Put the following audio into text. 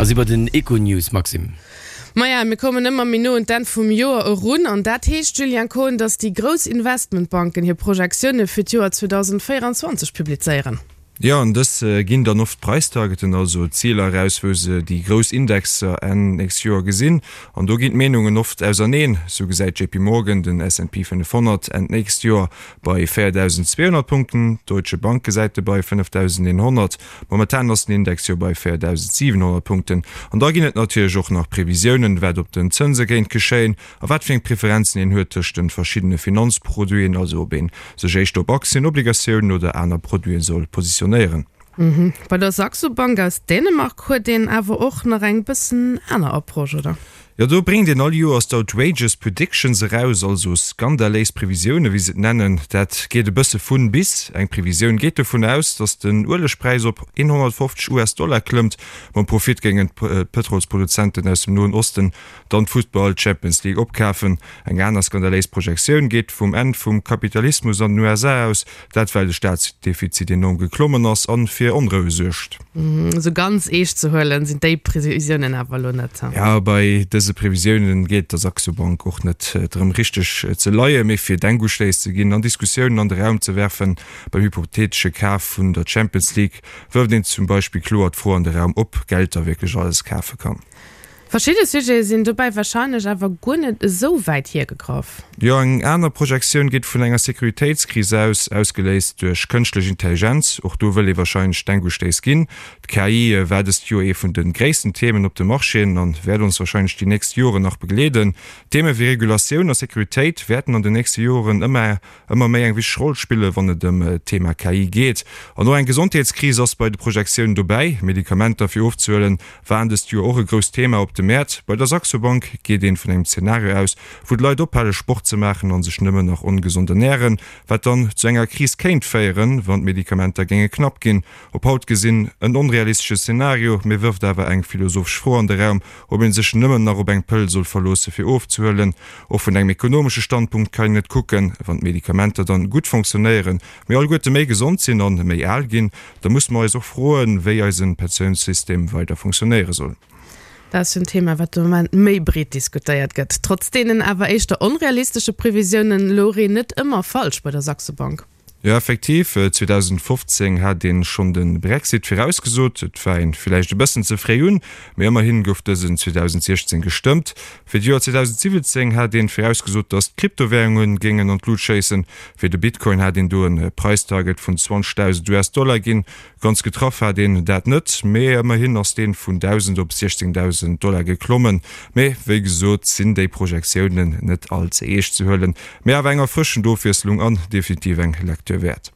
A si bei den Econews, Maxime. Maja, mir kommen ëmmer méi no un d'Enn vum Joer erun. An dat heescht, Julien Kohn, datt déi grouss Investmentbanken hir Projektioune fir d'Joer 2024 publizéieren. Jo, an dës ginn dann oft Preistargeten, also Ziler eraus, wou se déi grouss Indexer Enn nächst Joer gesinn. An do ginn d'Meenungen oft auserneen. Sou gesäit JP Morgan den S&P 500 Enn d'nächst Joer bei 4.200 Punkten, d'Deutsche Bank gesäit e bei 5.100. Momentan ass den Index jo bei 4.700 Punkten. An da ginn et natierlech och nach Previsiounen, wat op den Zënse kéint geschéien a wat fir eng Preferenzen een huet tëscht de verschiddene Finanzproduiten, also ob ee sech éischter op Aktien, Obligatiounen oder aner Produite soll positionéieren. Bei der Saxo Bank aus Dänemark huet een awer och nach eng bëssen aner Approche, oder? Jo, do bréngt een all Joers d'Outrageous Predictions eraus, also skandaléis Previsiounen, wéi se et nennen. Dat geet e bësse vun bis. Eng Previsioun geet dovun aus, datt den Uelegpräis op 150 US-Dollar klëmmt. Mam Profit géingen d'Pëtrolsproduzenten aus dem Noen Osten dann d'Futtball Champions League opkafen. Eng aner skandaléis Projektioun geet vum Enn vum Kapitalismus an den USA aus, Dat well de Staatsdefizit enorm geklommen ass an fir Onroue suergt. Esou ganz eescht ze huelen sinn déi Previsiounen awer elo net. Jo, bei dëse Previsiounen geet et der Saxo Bank och net drëm richteg ze leien, mee fir Denkustéiss ze ginn an Diskussiounen an de Raum ze werfen. Beim hypotheetesche Kaf vun der Champions League wërft een zum Beispill kloer d'Fro an de Raum, ob Geld da wierklech alles kafe kann. Verschidde Sujete sinn dobäi warscheinlech awer guer net esou wäit hiergegraff. Jo, eng aner Projektioun geet vun enger Sécuritéitskris aus, ausgeléist duerch kënschtlech Intelligenz. Och do wëll ee warscheinlech Denkustéiss ginn. D'KI war dëst Joer ee vun de gréissten Themen op de Marchéen an wäert ons warscheinlech déi nächst Joren nach begleeden. Theme wéi Regulatioun a Sécuritéit wäerten an den nächste Joren ëmmer ëmmer méi eng wichteg Roll spillen, wann et ëm d'Thema KI geet. An och eng Gesondheetskris ass bei de Projektiounen dobäi. Medikamenter fir ofzehuelen waren dëst Joer och e grousst Thema op de Mäert. Bei der Saxo Bank geet een vun engem Zenario aus, wou d'Leit ophale Sport ze maachen a sech nëmmen nach ongesond ernären, wat dann zu enger Kris kéint féieren, wann d'Medikamenter géinge knapp ginn. Op haut gesinn en onrealistesche Zenario, mee wërft awer eng philosophesch Fro an de Raum, ob ee sech nëmmen nach op eng Pëll soll verloosse fir ofzehuelen. Och vun engem ekonomesche Standpunkt kann een et kucken, wann d'Medikamenter dann gutt fonctionnéieren, mir alleguerte méi gesond sinn an méi al ginn, da musse mer eis och froen, wéi eisen Pensiounssystem weider fonctionnéiere soll. Dat ass jo en Thema, wat de Moment méi breet diskutéiert gëtt. Trotz deenen awer éischter onrealistesche Previsiounen louch een net ëmmer falsch bei der Saxo Bank. Jo effektiv, 2015 hat een schonn de Brexit virausgesot. Et war een villäicht e bëssen ze fréi un, mee ëmmerhin gouf dësen 2016 gestëmmt. Fir d'Joer 2017 hat een virausgesot, datt d'Kryptowärungen géingen an d'Lut schéissen. Fir de Bitcoin hat een do en Preistarget vun 20.000 US-Dollar ginn. Ganz getraff hat een dat net, mee ëmmerhin ass deen vun 1.000 op 16.000 Dollar geklommen. Mee wéi gesot sinn déi Projektiounen net all ze eescht ze huelen, mee awer eng erfrëschend Ofwiesslung an definitiv eng Lecture wäert.